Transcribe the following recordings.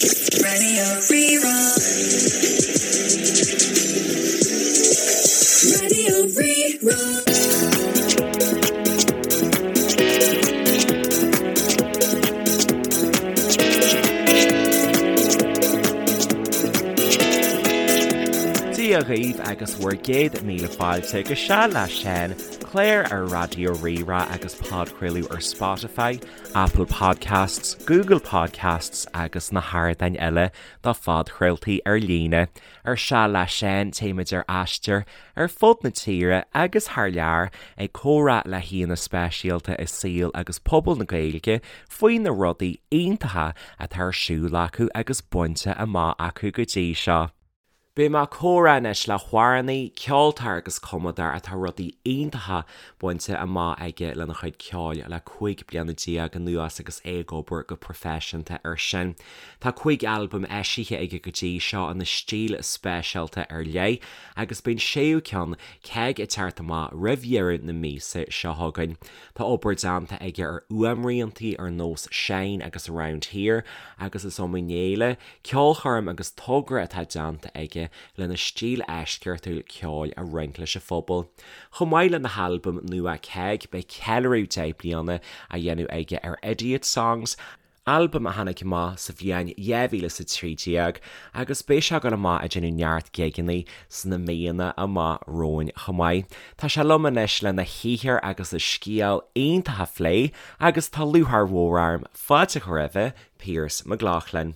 Radio Rí-Rá. Radio Rí-Rá. Dia dhaoibh agus bhur gcéad míle fáilte go Seal le Seán, clár ar Raidió Rí-Rá agus podchraoladh ar Spotify, Apple Podcasts, Google Podcasts agus na hardáin eile do phodchraoltaí ar líne. Ar Seal le Seán téimid ar aistear ar fud na tíre agus thar lear ag comhrá le haíonna speisialta i saol agus pobal na Gaeilge faoi na rudaí iontacha atá ar siúl acu agus bainte amach acu go dtí seo. Beidh mé ag comhrá anois le hamhránaí, ceoltóir agus cumadóir atá rudaí iontacha bainte amach aige lena chuid ceoil le 15 bliana anuas agus é ag obair go proifisiúnta air sin. Tá 5 albam eisithe aige go dtí seo ina stíl speisialta ar leith agus beidh an séú ceann, Ceig, ag teacht amach roimh dheireadh na míosa seo chugainn. Tá obair déanta aige ar fhuaimriantaí ar nós Shine agus Around Here agus is iomaí féile, ceolchoirm agus togra atá déanta aige lena stíl eisceachtúil ceoil a roinnt leis an phobal. Chomh maith lena halbam nua Ceig, beidh ceiliúradh 10 bliana á dhéanamh aige ar Idiot Songs, albam a tháinig amach sa bhliain 2013 agus beidh sé ag dul amach ag déanamh neart gigeanna sna míonna amach romhainn chomh maith. Tá sé liom anois lena shaothar agus a scéal iontach a phlé agus tá lúcháir mhór orm fáilte a chur roimhe, Pearse McLaughlin.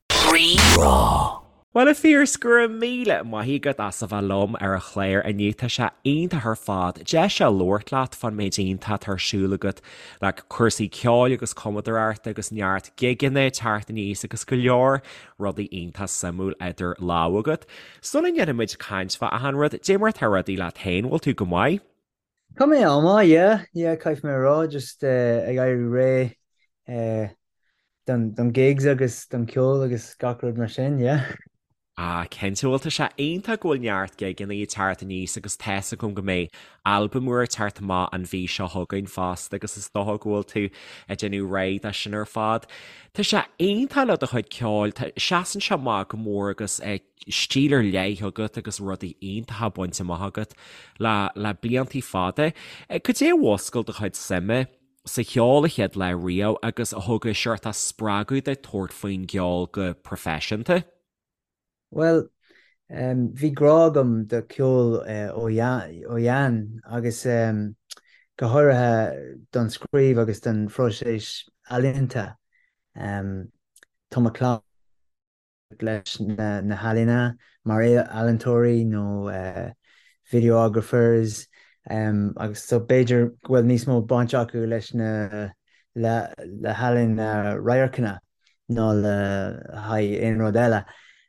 Rí-Rá. Bhuel a Phearse, go raibh míle maith agat as a bheith liom ar an chlár inniu. Tá sé iontach ar fad deis a labhairt leat fán méid iontach atá ar siúl agat le cúrsaí ceoil agus cumadóireachta agus neart gigeanna ag teacht aníos agus go leor rudaí iontach suimiúil idir lámha agat. Sula ndéanfaidh muid caint fá achan rud, dé mar atá rudaí leat féin, bhfuil tú go maith? Tá mé an-mhaith, yeah, yeah, caithfidh mé a rá, just ag éirí réidh don gigs agus don ceol agus gach rud mar sin, yeah. Ah, cinnte, bhuel tá sé iontach go bhfuil neart gigeanna ag teacht aníos agus tá's agam go mbeidh albam úr ag teacht amach an mhí seo chugainn fosta agus is dócha go bhfuil tú ag déanamh réidh dó sin ar fad. Tá sé iontach le do chuid ceoil, tá, seasann sé amach go mór agus stíl ar leith agat agus rudaí iontacha bainte amach agat le le bliantaí fada. Cad é a mhúscail do chuid suime sa cheol an chéad lá riamh agus a thug an seort spreagadh duit tabhairt faoin gceol go proifisiúnta? Bhuel, bhí grá agam do ceol ó shean agus go háirithe don scríobh agus don phróiseas ealaíonta. Tá mo chlann leis na healaíona mar ealaíontóirí nó videographers agus so b'fhéidir go bhfuil níos mó baint acu leis na le le healaíona radharcanna ná le haghaidh aon rud eile.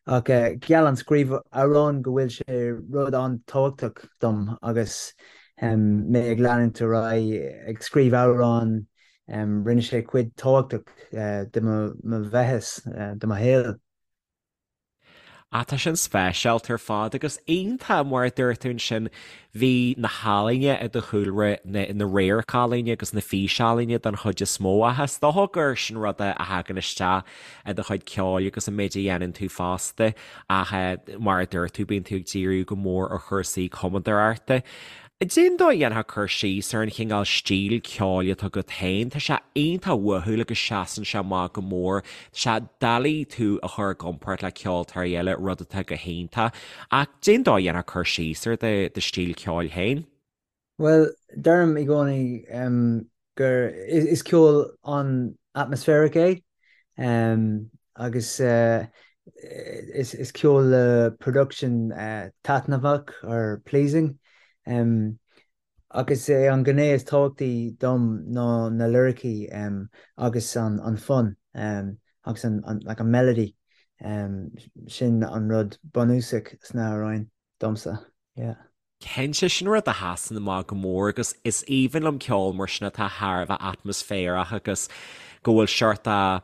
Ach gheall an scríobh amhrán go bhfuil sé rud an-tábhachtach dom agus mé ag leanúint ar aghaidh ag scríobh amhrán Rinne sé cuid tábhachtach de mo bheathas, de mo shaol. Ah, tá sin speisialta ar fad agus iontach mar a dúirt tú ansin, bhí na healaíona i do chúlra, na na radharc-ealaíona agus na físealaíona den chuid is mó ach is dócha gur sin rud a thagann isteach i do chuid ceoil agus an méid a dhéanann tú fosta ach mar a dúirt tú, bíonn tú ag díriú go mór ar chúrsaí cumadóireachta. Cén dóigh a dhéanfá cur síos ar an chineál stíl ceoil atá agat féin? Tá sé iontach uathúil agus seasann sé amach go mór. Tá sé doiligh tú a chur i gcomparáid le ceoltóirí eile, rud atá go hiontach. Ach cén dóigh a dhéanfá cur síos ar do stíl ceoil féin? Bhuel, deirim i gcónaí gur is ceol an-atmospheric é agus is ceol le production taitneamhach or pleasing ach is é an gné is tábhachtaí dom ná na liricí agus an fonn agus an like an melody sin an rud bunúsach sna hamhráin domsa yeah. Cinnte, sin rud a sheasann amach go mór agus is aoibhinn liom ceol mar sin atá thar a bheith atmaisféarach agus go bhfuil seort a.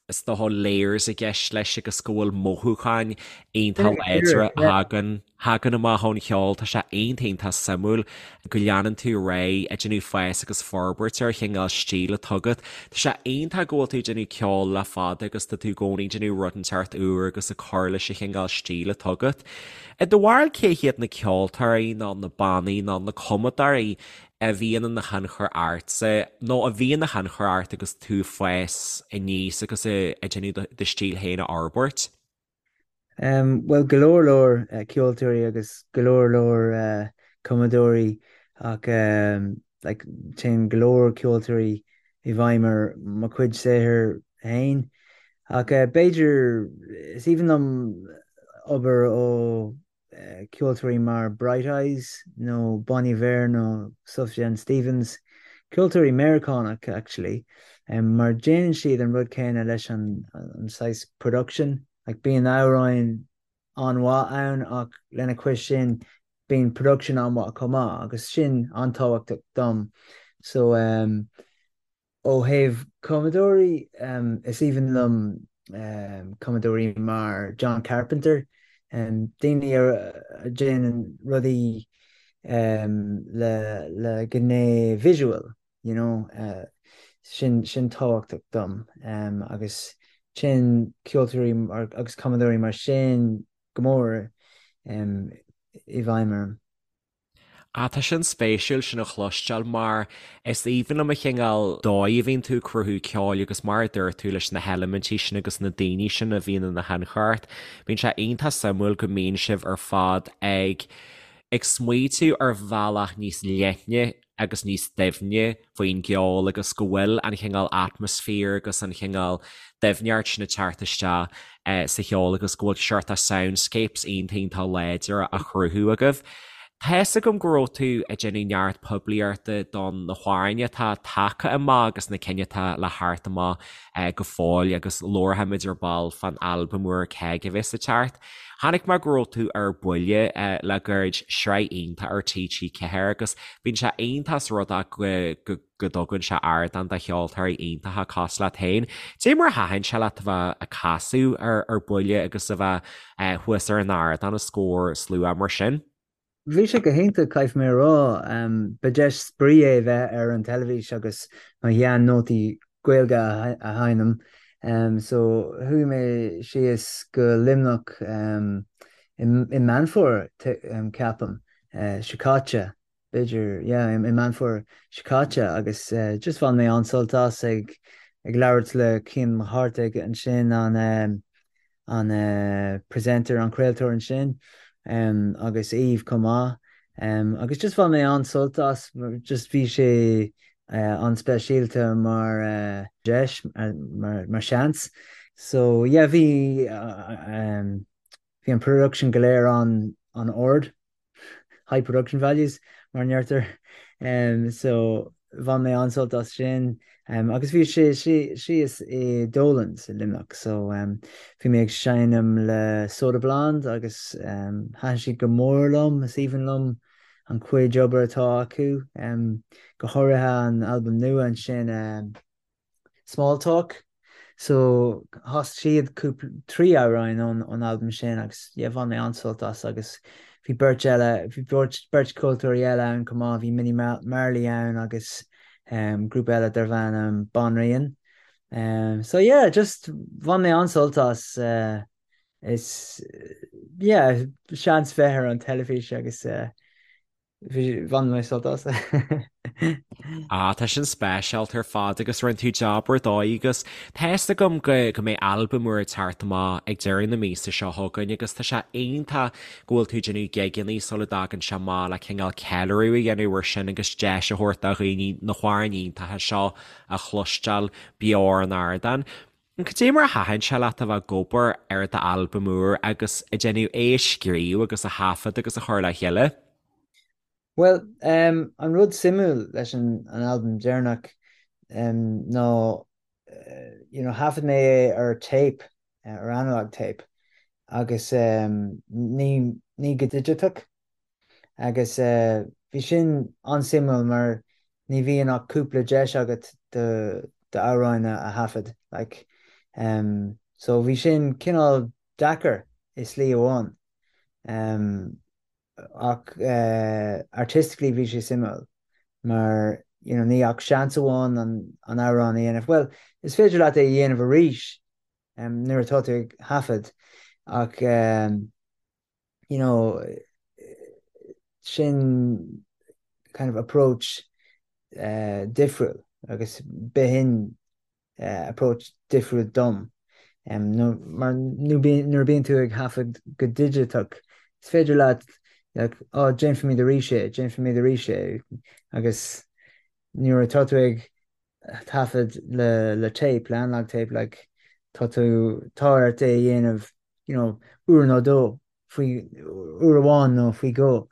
Is dócha layers i gceist leis agus go bhfuil mothúcháin iontach láidre a thagann thagann amach ón cheol. Tá sé iontach iontach suimiúil go leanann tú ar aghaidh ag déanamh fás agus forbairt ar chineál stíl atá agat. Tá sé iontach go bhfuil tú ag déanamh ceoil le fada agus tá tú i gcónaí ag déanamh rud inteacht úr agus ag cur leis an chineál stíl atá agat. I do bharúil cé hiad na ceoltóirí nó na bannaí nó na cumadóirí a bhíonn ina thionchar ortsa, nó a bhí ina thionchar ort agus tú ag fás aníos agus ag déanamh do stíl féin a fhorbairt? Bhuel, go leor leor ceoltóirí agus go leor leor cumadóirí ach like téann go leor ceoltóirí i bhfeidhm ar mo chuid saothair féin. Ach b'fhéidir, is aoibhinn liom obair ó ceoltóirí mar Bright Eyes nó Bon Iver nó Sufjan Stevens, ceoltóirí Meiriceánach actually, mar déanann siad an rud céanna leis an saghas production, like bíonn amhráin an-mhaith ann ach lena chois sin bíonn production an-mhaith chomh maith agus sin an-tábhachtach dom. So um, Ó thaobh cumadóirí, is aoibhinn liom cumadóirí mar John Carpenter, daoine a dhéanann rudaí le gné visual, you know, sin sin tábhachtach dom agus téann ceoltóirí agus cumadóirí mar sin go mór i bhfeidhm orm. Ah, tá sin spéisiúil sin a chloisteáil mar is aoibhinn liom an chineál dóigh a bhíonn tú ag cruthú ceoil agus mar a dúirt tú leis na heilimintí sin agus na daoine sin a bhíonn ina thionchar ort. Bíonn sé iontach suimiúil go mbíonn sibh ar fad ag ag smaoitiú ar bhealach níos leithne agus níos doimhne faoin gceol agus go bhfuil an chineál atmaisféar agus an chineál doimhneacht sin ag teacht isteach sa cheol agus go bhfuil seort of soundscapes iontach iontach láidir á chruthú agaibh. Tá fhios agam go raibh tú ag déanamh neart poiblíochta don na hamhráin atá tagtha amach agus na cinn atá le theacht amach go fóill agus labharfaimid ar ball fán albam úr Ceig a bheas ag teacht. Chonaic mé go raibh tú ar buile le gairid, sraith iontach ar TG4 agus bíonn sé iontach is rud é go go dtugann sé ardán do cheoltóirí iontacha cosúil leat féin. Cad é mar a thaitin sé leat a bheith ag casadh ar buile agus a bheith thuas ar an ardán os comhair slua mar sin? Bhí sé go hiontach, caithfidh mé a rá. Ba deis spraoi é bheith ar an teilifís agus mo shean-nótaí Gaeilge a sheinm. So chuaigh mé síos go Luimneach i Meán Fómhair, ceapaim, seo caite. b'fhéidir, yeah, i Meán Fómhair seo caite agus just bhain mé an-sult as ag ag labhairt le Cian Mac Cárthaigh ansin, an an presenter, an craoltóir ansin agus Aoibh chomh maith agus just bhain mé an-sult as, just bhí sé an-speisialta mar deis, mar mar seans. So yeah, bhí bhí an production go léir an an-ard. high production values mar a deirtear. So bhain mé an-sult as sin. Agus bhí sé síos i Dolan's i Luimneach so bhí mé ag seinm le Soda Blonde agus thaitin siad go mór liom, is aoibhinn liom an chuid obair atá acu, go háirithe an albam nua ansin. Small Talk. So chas siad cúpla, 3 amhráin ón albam sin agus yeah bhain mé an-sult as agus bhí beirt eile, bhí beirt, beirt ceoltóirí eile ann chomh maith, bhí Minnie Marley ann agus um, grúpa eile darbh ainm Banríon. Um, so yeah, just bhain mé an-sult as uh, is yeah, seans bheith ar an teilifís agus uh, Bhain mé sult as. Ah, tá sin speisialta ar fad agus rinne tú jab ar dóigh agus tá fhios agam go go mbeidh albam úr ag teacht amach ag deireadh na míosa seo chugainn agus tá sé iontach go bhfuil tú ag déanamh gigeanna sula dtagann sé amach le cineál ceiliúradh a dhéanamh ar sin agus deis a thabhairt do dhaoine na hamhráin iontacha seo a chloisteáil beo ar an ardán. Cad é mar a thaitin sé leat a bheith ag obair ar d'albam úr agus ag déanamh é a scríobh agus a thaifead agus a chur le chéile? Bhuel, an rud suimiúil leis an albam deireanach ná you know thaifead mé é ar tape, ar analog tape agus ní ní go digiteach. Agus bhí sin an-suimiúil mar ní bhíonn ach cúpla deis agat do d'amhráin a thaifead. Like. So bhí sin cineál deacair i slí amháin. Ach artistically bhí sé suimiúil mar you know ní ach seans amháin an amhrán a dhéanamh. Bhuel, is féidir leat é a dhéanamh arís nuair atá tú ag thaifead ach you know sin kind of approach difriúil agus b'shin approach difriúil dom. Mar nuair a bíonn tú ag thaifead go digiteach, is féidir leat like, oh, déanfaimid arís é, déanfaimid arís é, agus nuair atá tú ag taifead le le tape, le analog tape, like, tá tú, tá ort é a dhéanamh, you know, uair nó dó, faoi, uair amháin nó faoi dhó.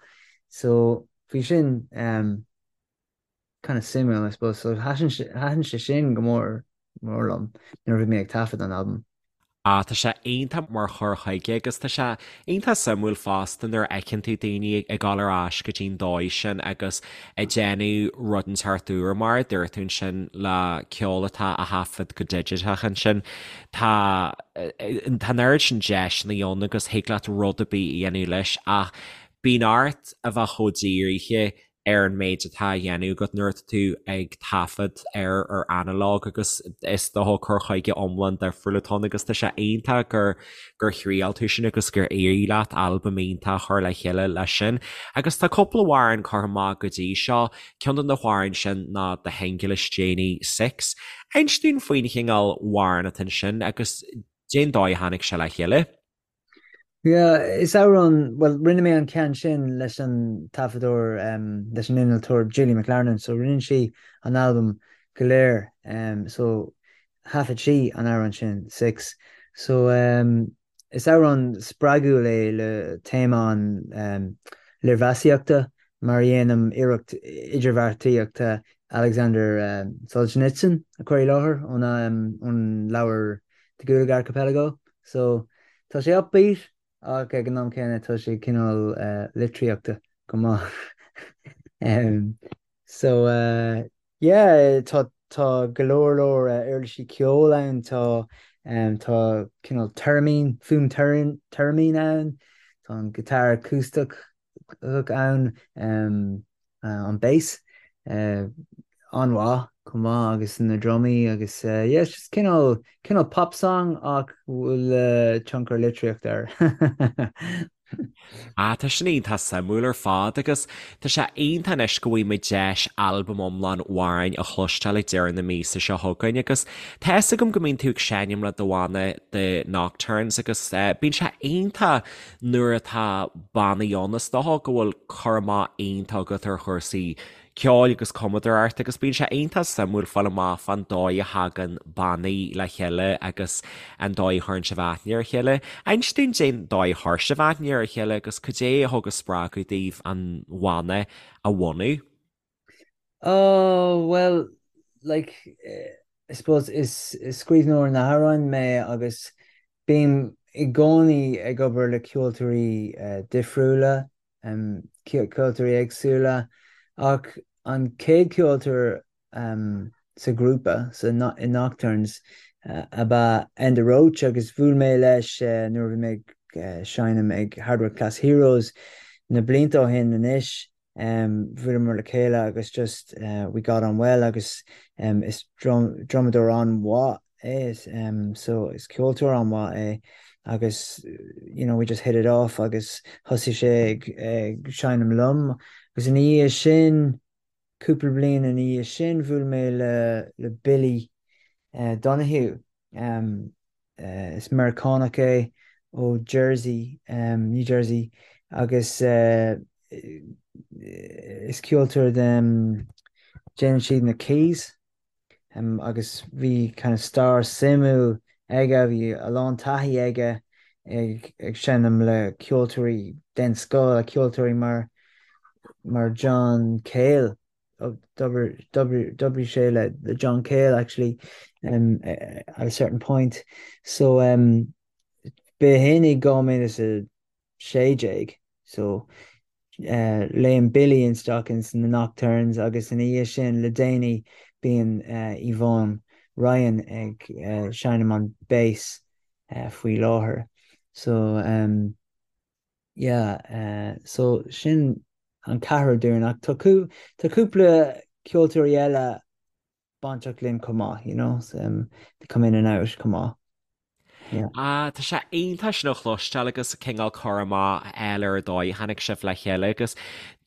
So, bhí sin, um, kind of suimiúil, I suppose. So thaitin thaitin sé sin go mór mór liom nuair a bhí mé ag taifead an albam. Ah, tá sé iontach mar chur chuige agus tá sé iontach suimiúil fosta nuair a fheiceann tú daoine ag dul ar ais go dtí'n dóigh sin agus ag déanamh rud inteacht úr mar a dúirt tú ansin le ceol atá á thaifead go digiteach ansin. Tá tá an oiread sin deiseanna ann agus thig leat rud ar bith a dhéanamh leis ach bíonn ort a bheith chomh dírithe ar an méid atá á dhéanamh agat nuair atá tú ag taifead ar ar analog agus is dócha cur chuige iomlán difriúil atá ann agus tá sé iontach gur gur thriail tú sin agus gur éirigh leat albam iontach a chur le chéile leis sin. Agus tá cúpla amhrán curtha amach go dtí seo, ceann de na hamhráin sin ná do shingil is déanaí Six. Inis dúinn faoin chineál amhrán atá ansin agus cén dóigh a tháinig sé le chéile. Yeah, is amhrán, bhuel, rinne mé an ceann sin leis an taifeadóir, leis an innealtóir Julie McLarnon, so rinne sí an albam go léir, so thaifead sí an amhrán sin, Six. So is amhrán spreagúil é le téama an léirmheasaíochta mar a dhéanaim iarracht idirbheartaíochta Alexander Solzhenitsyn a chur i láthair ón leabhar The Gulag Archipelago. So, tá sé upbeat ach ag an am céanna tá sé cineál litríochta go maith. So, yeah, tá tá go leor leor uirlisí ceoil ann, tá tá cineál theremin, fuaim theremin ann, tá an guitar acústach ann, an bass an-mhaith chomh maith agus na drumaí agus yeah it's just cineál cineál pop song ach bhfuil tionchar litríochta air. Ah tá sin iontach suimiúil ar fad agus tá sé iontach anois go bhfaighidh muid deis albam iomlán amhráin a chloisteáil ag deireadh na míosa seo chugainn agus tá fhios agam go mbíonn tú ag seinm le do bhanna The Nocturnes agus bíonn sé iontach Nuair atá bannaí ann, is dócha go bhfuil cur amach iontach agat ar chúrsaí ceoil agus cumadóireacht agus bíonn sé iontach suimiúil fáil amach fán dóigh a thagann bannaí le chéile agus an dóigh a chuireann sibh aithne ar a chéile. Inis dúinn cén dóigh a chuir sibh aithne ar a chéile agus cad é a thug an spreagadh daoibh an bhanna a bhunú. Oh, well, like, I suppose is scríbhneoir na n-amhrán mé agus bím i gcónaí ag obair le ceoltóirí difriúla, ceoltóirí éagsúla, ach an chéad cheoltóir sa ghrúpa, sa, i Nocturnes, ab ea Enda Roche agus bhuail mé leis nuair a bhí mé ag seinm ag Hardware Class Heroes na blianta ó shin anois. Bhuaileamar le chéile agus just we got on well agus is drumadóir an-mhaith é so is ceoltóir an-mhaith é agus you know we just hit it off agus thosaigh sé ag seinm liom agus ina dhiaidh sin, cúpla bliain ina dhiaidh sin bhuail mé le le Billy Donoghue. Is Meiriceánach é ó Jersey, New Jersey, agus is ceoltóir de, déanann siad na keys agus bhí kind of stair suimiúil aige, bhí a lán taithí aige ag seinm le ceoltóirí den scoth, ceoltóirí mar mar John Cale. D'oibrigh sé le John Cale actually at a certain point. So b'shin i 2016 so léim Billy isteach ins na Nocturnes agus ina dhiaidh sin le déanaí bíonn Yvonne. Ryan ag seinm an bass faoi láthair. So um, yeah, so sin an ceathrar dúinn ach tá tá cúpla ceoltóirí eile bainteach linn chomh maith, you know, um, they come in and out chomh maith. Yeah. Ah, tá sé iontach sin a chloisteáil agus cineál cur amach eile ar an dóigh a tháinig sibh le chéile agus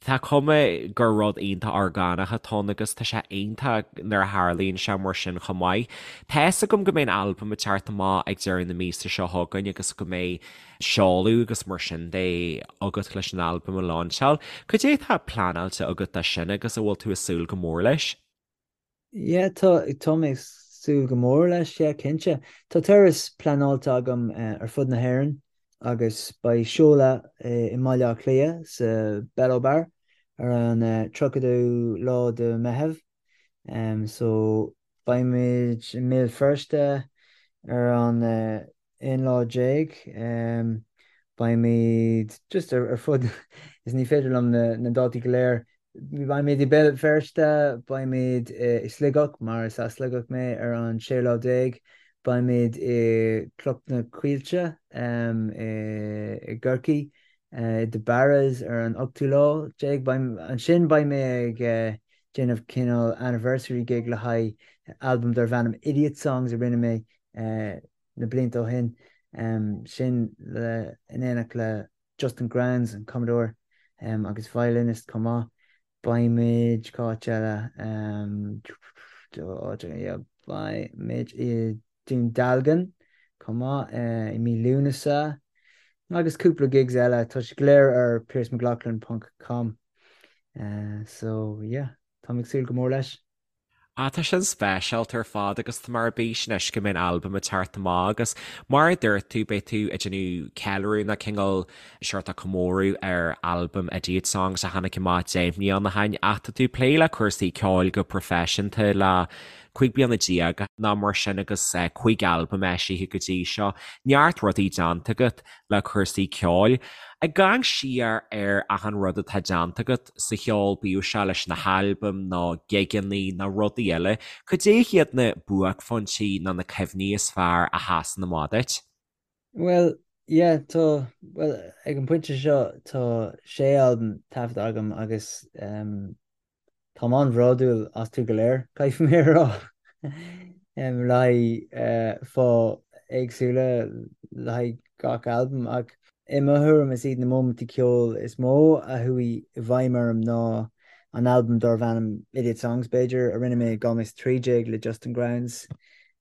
tá cuma gur rud iontach orgánach atá ann agus tá sé iontach nuair a tharlaíonn sé mar sin chomh maith. Tá fhios agam go mbeidh an albam ag teacht amach ag deireadh na míosa seo chugainn agus go mbeidh seoladh agus mar sin de agat leis an albam a lainseáil. Cad é atá pleanáilte agat dó sin agus an bhfuil tú ag súil go mór leis? Yeah, tá, tá mé ag súil go mór leis, yeah, cinnte. Tá turas pleanáilte agam ar fud na hÉireann agus beidh seoladh i mBaile Átha Cliath sa Bello Bar ar an 30ú lá de Meitheamh. So beimid i mBéal Feirste ar an 11 lá. Beimid just ar fud, is ní féidir liom na dátaí go léir, beimid i Béal Feirste, beimid i Sligeach, mar is as Sligeach mé, ar an 16 lá, beimid i Cnoc na Coillte i gCorcaigh, i The Barras ar an ochtú lá déag. Ansin beidh mé ag déanamh cineál anniversary gig le haghaidh albam darb ainm Idiot Songs a rinne mé na blianta ó shin, sin le in éineacht le Justin Grounds, an cumadóir agus violinist chomh maith. Beimid, cá háit eile? Beimid i Dún Dealgan chomh maith i mí Lúnasa agus cúpla gigs eile, tá siad go léir ar piercemcloughlin ponc com. So yeah, táim ag súil go mór leis. Ah, tá sin speisialta ar fad agus tá mé ar bís anois go mbeidh an albam ag teacht amach agus mar a dúirt tú, beidh tú ag déanamh ceiliúradh nó cineál seort comóradh ar albam Idiot Songs a tháinig amach 10 mbliana ó shin ach tá tú ag plé le cúrsaí ceoil go proifisiúnta le 15 bliana nó mar sin agus 5 albam eisithe go dtí seo. Neart rudaí déanta agat le cúrsaí ceoil. Ag amharc siar ar achan rud atá déanta agat sa cheol, bíodh sé leis na halbaim nó gigeanna nó rudaí eile, cad é hiad na buaicphointí nó na cuimhní is fearr a sheasann amach duit? Bhuel, yeah, tá, bhuel, ag an bpointe seo tá sé albam taifeadta agam agus ehm, Táim an-bhródúil astu go léir, caithfidh mé a rá, le haghaidh fáth éagsúla le haghaidh gach albam, ach i mo thuairim is iad na móimintí ceoil is mó a chuaigh i bhfeidhm orm ná an albam darbh ainm Idiot Songs, b'fhéidir, a rinne mé i 2013 le Justin Grounds.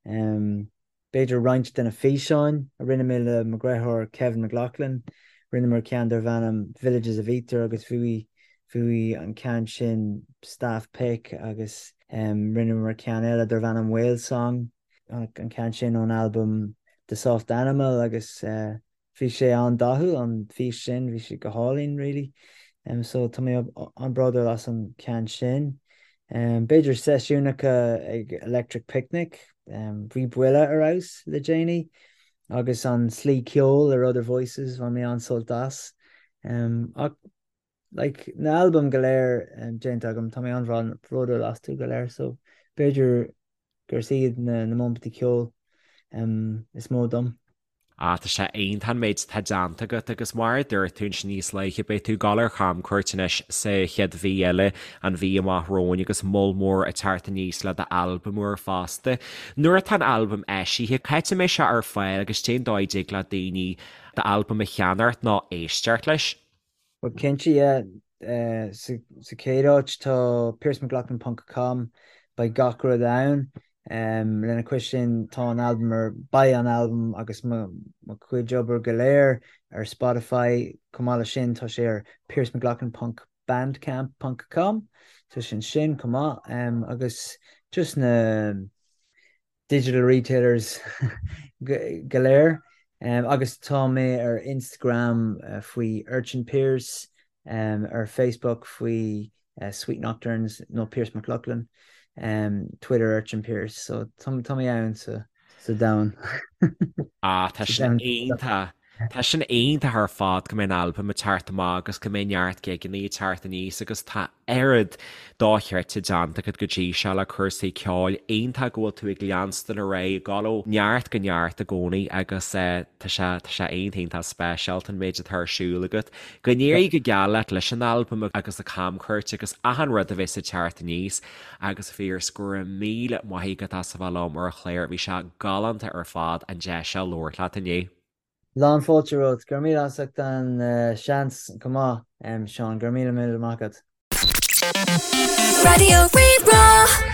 B'fhéidir roinnt de na físeáin a rinne mé le mo dheartháir Kevin McLoughlin. Rinneamar ceann darbh ainm Villages of Ether agus bhuaigh bhuaigh an ceann sin Staff Pick agus rinneamar ceann eile darbh ainm Whale Song, an ceann sin ón albam The Soft Animal agus Bhí sé an-dathúil, an fís sin, bhí sé go hálainn really. So tá mé an-bhródúil as an ceann sin. B'fhéidir seisiúnacha ag Electric Picnic, bhí Buile ar fheabhas le déanaí agus an Slí Ceoil ar Other Voices, bhain mé an-sult as. Ach like na albaim go léir déanta agam, tá mé an-bhródúil astu go léir so b'fhéidir gur iad na móimintí ceoil is mó dom. Ah, tá sé iontach an méid atá déanta agat agus mar a dúirt tú ansin níos luaithe, beidh tú ag dul ar chamcuairt anois sa chéad mhí eile, an mhí amach romhainn agus moll mór ag teacht aníos le d'albam úr fosta. Nuair atá an albam eisithe, cá háit a mbeidh sé ar fáil agus cén dóigh a dtig le daoine d'albam a cheannacht nó éisteacht leis? Bhuel cinnte, yeah. Sa chéad áit tá piercemcloughlin ponc com, beidh gach rud ann. Lena chois sin tá an albam ar, beidh an albam agus mo chuid obair go léir ar Spotify. Chomh maith leis sin tá sé ar piercemcloughlin ponc bandcamp ponc com, tá sé ansin chomh maith. Agus just na. digital retailers go léir agus tá mé ar Instagram faoi Urchin Pearse, ar Facebook faoi Sweet Nocturnes nó Pearse McLoughlin, Twitter Urchin Pearse, so tá mé ann sa domhan. Ah, tá sin iontach. Tá sin iontach ar fad go mbeidh an albam ag teacht amach agus go mbeidh neart gigeanna ag teacht aníos agus tá oiread dochreidte déanta agat go dtí seo le cúrsaí ceoil. Iontach go bhfuil tú ag leanstan ar aghaidh, ag dul ó neart go neart i gcónaí agus tá sé tá sé iontach iontach speisialta an méid atá ar siúl agat. Go n-éirí go geal leat leis an albam agus an camchuairt agus achan rud a bheas ag teacht aníos agus a Phiarais go raibh míle maith agat as a bheith liom ar an chlár, bhí sé galánta ar fad an deis seo labhairt leat inniu. Lán fáilte romhat. Go raibh míle as ucht an seans chomh maith, Seán. Go raibh míle míle maith agat. Raidió Rí-Rá.